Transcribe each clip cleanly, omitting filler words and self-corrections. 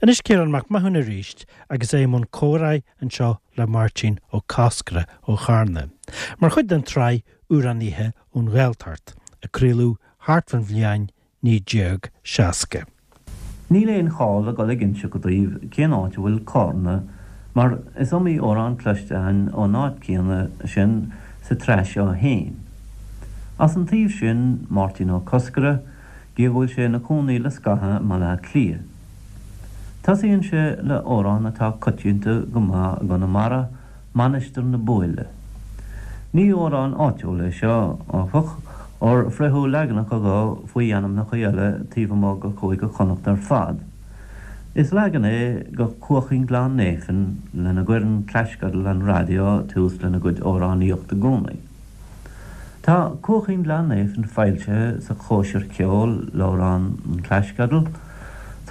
Anois Ciarán Mac Mathúna arís agus é i mbun comhráidh anseo le Máirtín Ó Cosgordha ó Charna, mar chuid den tsraith Amhránaithe ón Ghaeltacht, a craoladh thart fán bhliain 1960. Níl aon chall a dhul ag inseacht daoibh cén áit a bhfuil Cárna mar is iomaí amhrán cloiste againn ón áit céanna sin sa tsraith seo fhéin. As an taobh sin, Máirtín Ó Cosgordha, gidh go bhfuil sé ina chónaí le scaitheamh i mBaile Átha Cliath. Tosaíonn sé le amhrán atá coitianta go maith i gConamara, Mainistir na Búille. Ní amhrán áitiúil é seo, áfach, óir fritheadh leaganacha dho faoi ainmneacha eile taobh amuigh de Chúige Chonnacht ar fad. Is leagan é de Cuaichín Ghleann Néifinn lena gcuireann Claisceadal an Raidió tús lena gcuid amhránaíochta i gcónaí. Tá Cuaichín Ghleann Néifinn foilsithe sa Chóisir Cheoil, leabhrán an Claisceadail.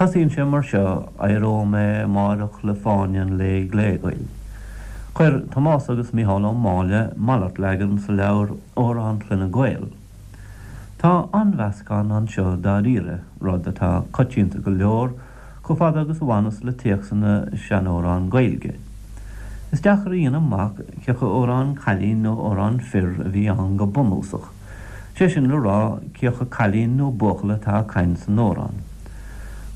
Tosaíonn sé mar seo, Éireoidh mé amáireach le fáinne an lae ghléghil. Chuir Tomás agus Mícheál Ó Máille malairt leagan sa leabhar Amhráin Chloinne Gael. Tá an-mheascán anseo dáiríre, rud atá coitianta go leor chomh fada agus a bhaineas le téacsanna seanamhrán Gaeilge. Is deacair a dhéanamh amach cé acu amhrán cailín nó amhrán fir a bhí ann go bunúsach, sé sin le rá cé acu cailín nó buachaill atá ag caint san amhrán.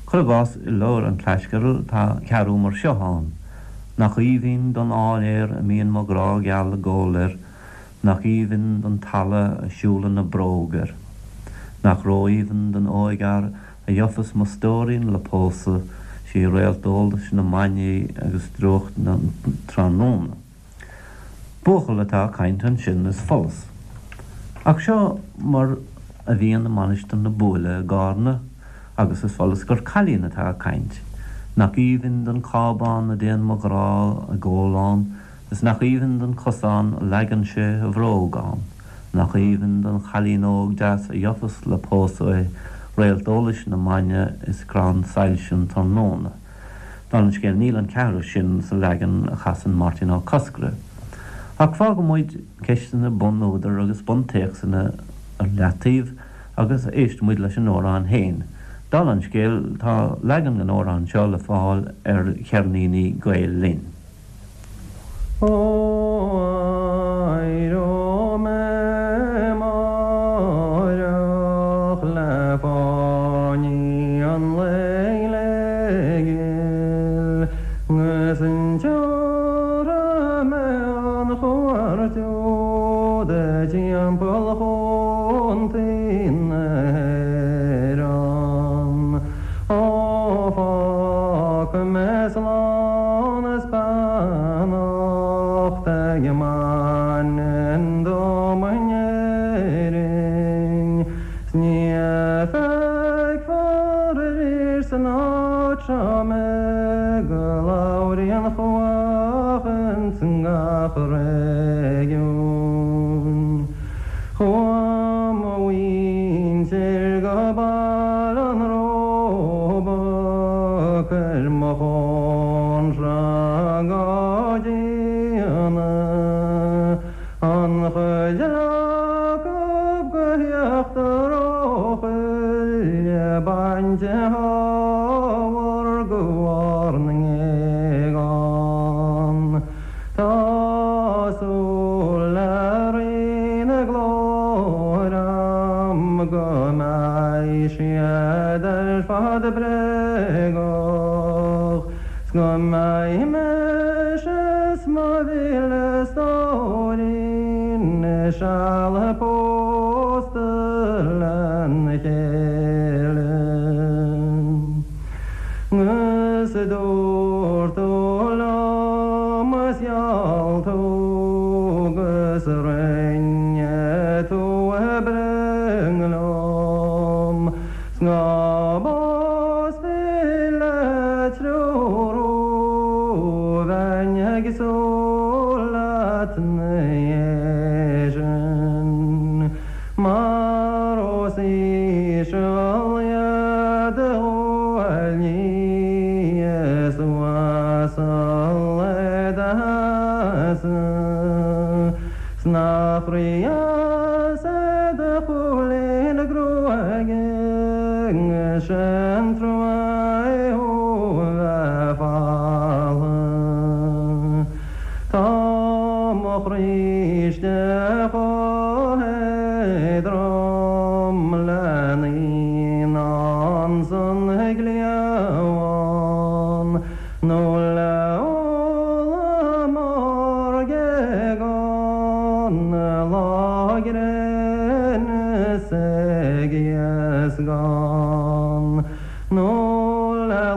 Cuir i gcás i leabhar an Claisceadail tá ceathrú mar seo ann, Nach aoibhinn don áiléar a mbíonn mo ghrá geal ag gol air, Nach aoibhinn don talamh a siúlann a bróg air. Nach ró-aoibhinn don óigfhear a gheofas mo stóirín le pósadh, sí réalt eolais na mbainní agus drúcht na tráthnóna. Buachaill atá ag caint ansin is follas. Ach seo mar a bhíonn i Mainistir na Búille i gCárna agus is follas gur cailín atá ag caint. Nach aoibhinn don cábán a dtéann mo ghrá ag ól ann, Is nach aoibhinn don chosán a leagann sé a bhróg ann, Nach aoibhinn don chailín óg deas a gheofas le pósadh é, Réalt eolais na maidne is crann soilse an tráthnóna. Dála an scéil, níl an ceathrú sin sa leagan a chasann Máirtín Ó Cosgordha. Ach fágfaidh muid ceisteanna bun-údar agus buntéacsanna ar leataobh agus éistfidh muid leis an amhrán féin. Dála an scéil, tá leagan den amhrán seo le fáil ar cheirníní Gael Linn. Ó éireoidh mé amáireach le fáinní an lae ghléghil 'gus tiúrfaidh mé an chuairt úd timpeall chontae na hÉireann. Ó fágfaidh mé slán is beannacht ag Manainn dom in Éirinn 's ní feicfear arís san áit seo mé go labhraí an chuach ins gach réigiún. Chuaigh mo mhuintir go Baile an Róba, cuir mo chónra go dtína, an chuid acub go híochtar Eochaille, bainte ábhar go bharr na ngéagán. Tá súil le Rí na Glóire a'm go mbeidh siad ar fad bréagach 's go mbeidh mise 's mo mhíle stóirín seal pósta lena chéile. 'Gus dúirt tú liom is gheall tú 'gus rinne tú broinn liom 's ná pósfaí le triúr thú bheinn ag súil leat 'na dhiaidh sin mar os íseal iad do ghuaillí is uasal é do sheasamh 's nach rídheas é do chúilín gruaige sin trua é thú a bheith.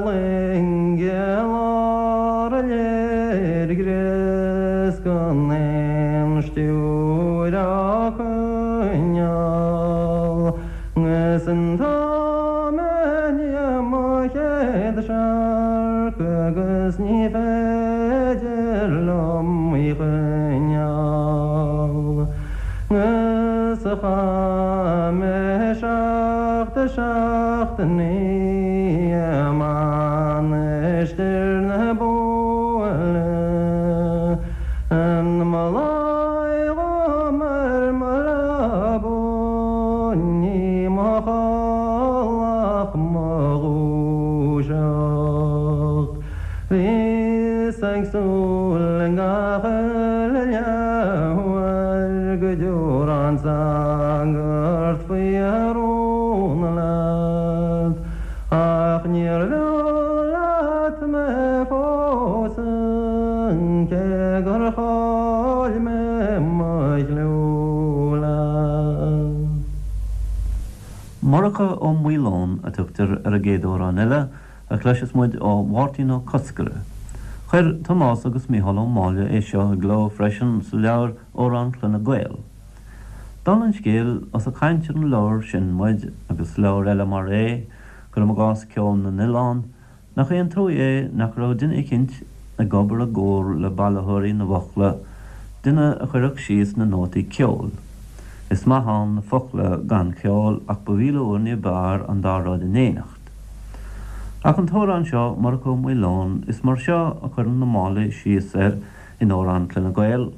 loinge i lár an léirghe 's gan aon stiúir á coinneáil 'Gus an t-am i ndiaidh mo chéad searc agus ní féidir liom í choinneáil 'Gus a chaith mé seacht seachtainí i Mainistir na Búille An mba lá dhom ar mo leaba ní mo chodladh ach mo dhúiseacht. Bhíos ag súil i ngach uile leathuair go dtiúrfadh an sagart faoi rún leat, ach níor bheo leat mé fós. Cé gur chaill mé mo chliú leat. Murchadh Ó Maoileoin a tugtar ar an gcéad amhrán eile a chloisfeas muid ó Mháirtín Ó Cosgaire. Chuir Tomás agus Mícheál Ó Máille é seo i gcló freisin sa leabhar Amhráin Chloinne Gael. Dála an scéil, ós ag caint ar an leabhar sin muid, agus leabhair eile mar é, cuirim i gcás Ceol na nOileán, Nach é an truaigh é nach raibh duine eicínt ag obair i gcomhar le bailitheoirí na bhfocla, duine a chuirfeadh síos na nótaí ceoil. Is maith ann na focla gan cheol ach ba mhíle uair ní b'fhearr an dá rud in éineacht. Ach an t-amhrán seo, Murchadh Ó Maoileoin, is mar seo a chuireann na Máilligh síos air in Amhráin Chloinne Gael.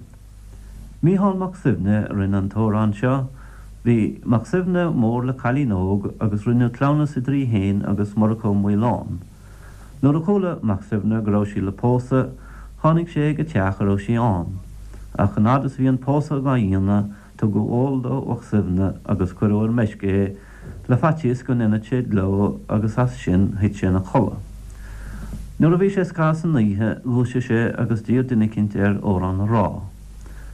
Mícheál Mac Suibhne a rinne an t-amhrán seo. Bhí Mac Suibhne mór le cailín óg agus rinneadh cleamhnas idir í fhéin agus Murchadh Ó Maoileoin. Nuair a chuala Mac Suibhne go raibh sí le pósadh, tháinig sé ag an teach a raibh sí ann. Ach an fhad is a bhí an pósadh dhá dhéanamh, tugadh ól do Mhac Suibhne agus cuireadh ar meisce é le faitíos go ndéanfadh sé gleo agus as sin thuit sé ina chodladh. Nuair a bhí sé scaitheamh san oíche dhúisigh sé agus d'iarr duine eicínt air amhrán a rá.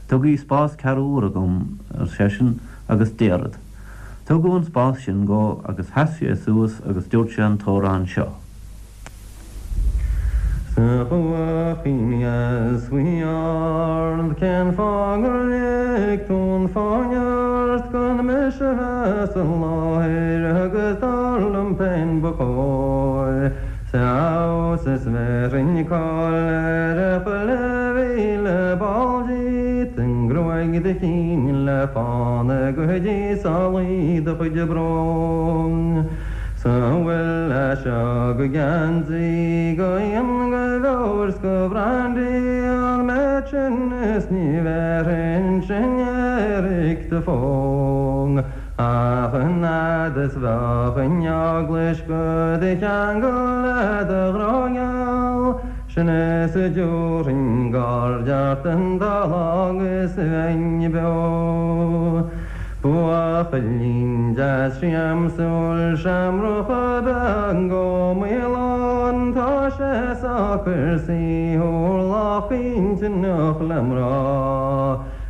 Tugaigí spás ceathrú uaire dhom, ar seisean, agus déarfad. Tugadh an spás sin dhó agus sheas sé suas agus dúirt sé an t-amhrán seo. 'S a chuachín dheas bhuí ard, cén fáth gur lig tú an fáinne ort gan mise bheith sa láthair agus dar liom féin ba chóir 's a fheabhas is bhéarfainn cáil ar chuile mhíle ball díot, i ngruaig do chinn le fána go dtí sálaí do chuid brón. 'S an bhfuil as seo go geansaí go fhíon go beoir 's go brandy an méid sin is ní bhéarfainn sin éiric do fonn ach an fhad is bheadh an eaglais go do cheangal le do ghrá gheal Sin is a dtiúrfainn gaird ort an dá lá agus bheinn beo. Buachaillín deas siamsúil seamrach ab ea Ó Maoileoin, tá sé socair saoithiúil lách intinneach le mná.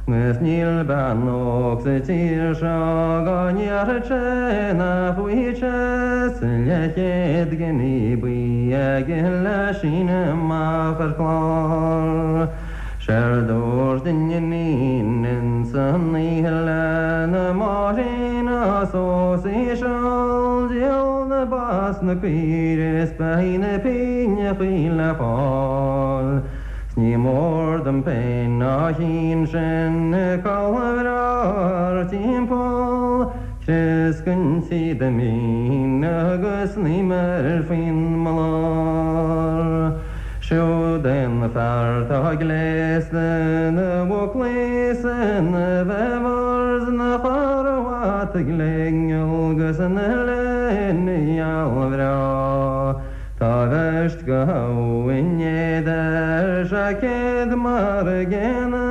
'Gus níl bean óg sa tír seo go ndéarfadh sé nach bhfaighidh sé 's leathchéad giní buí aige le síneadh amach ar chlár. Séard dúirt an iníon ins an oíche lena máithrín ná os íseal, díol na ba 's na caoirigh is beidh na pingneachaí le fáil. 'S ní mór dom féin á chinn sin culaith bhreá thar timpeall, Crios den tsíoda mín agus an uimhir faoin mblár. Siúd é an fear 'tá gléasta ina bhuclaí 's ina bheaver 's ina charbhat ghléigeal 'gus ina léine gheal bhreá. Tá beirt go habhainn éad ar seaicéad mar a gcéanna,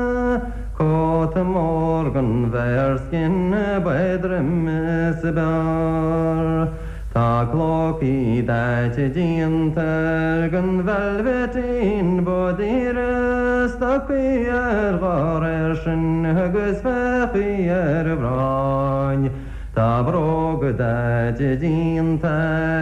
cóta mór den bhearskin ab éadroime is ab fhearr. Tá clócaí daite déanta air den veilbhitín ba daoire, stocaí air dhá réir sin agus féachaigí ar a bhráin. Tá bróga daite déanta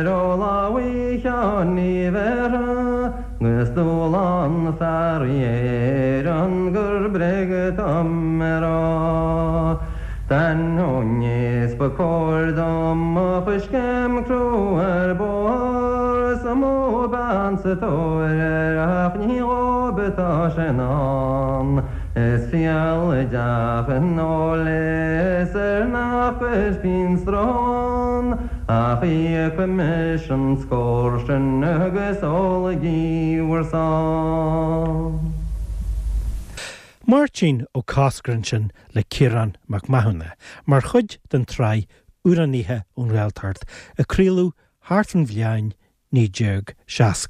ó lámhaigh Sheáin Uí Bhéarra 'gus dúlán fearaí Éireann gur bréag atá mé rá. D'ainneoin is ba cóir dom mo choiscéim crua ar bóthar is mó bean sa tóir air ach ní dhóib atá sé in ann. Is fial i dteach an óil é is air nach gcuirfinn stró ann ach íocfaidh mise an scór sin agus ólaigí bhur sáith. Máirtín Ó Cosgair ansin le Ciarán Mac Mathúna mar chuid den tsraith Amhránaithe ón Ghaeltacht a craoladh thart fán bhliain 1960.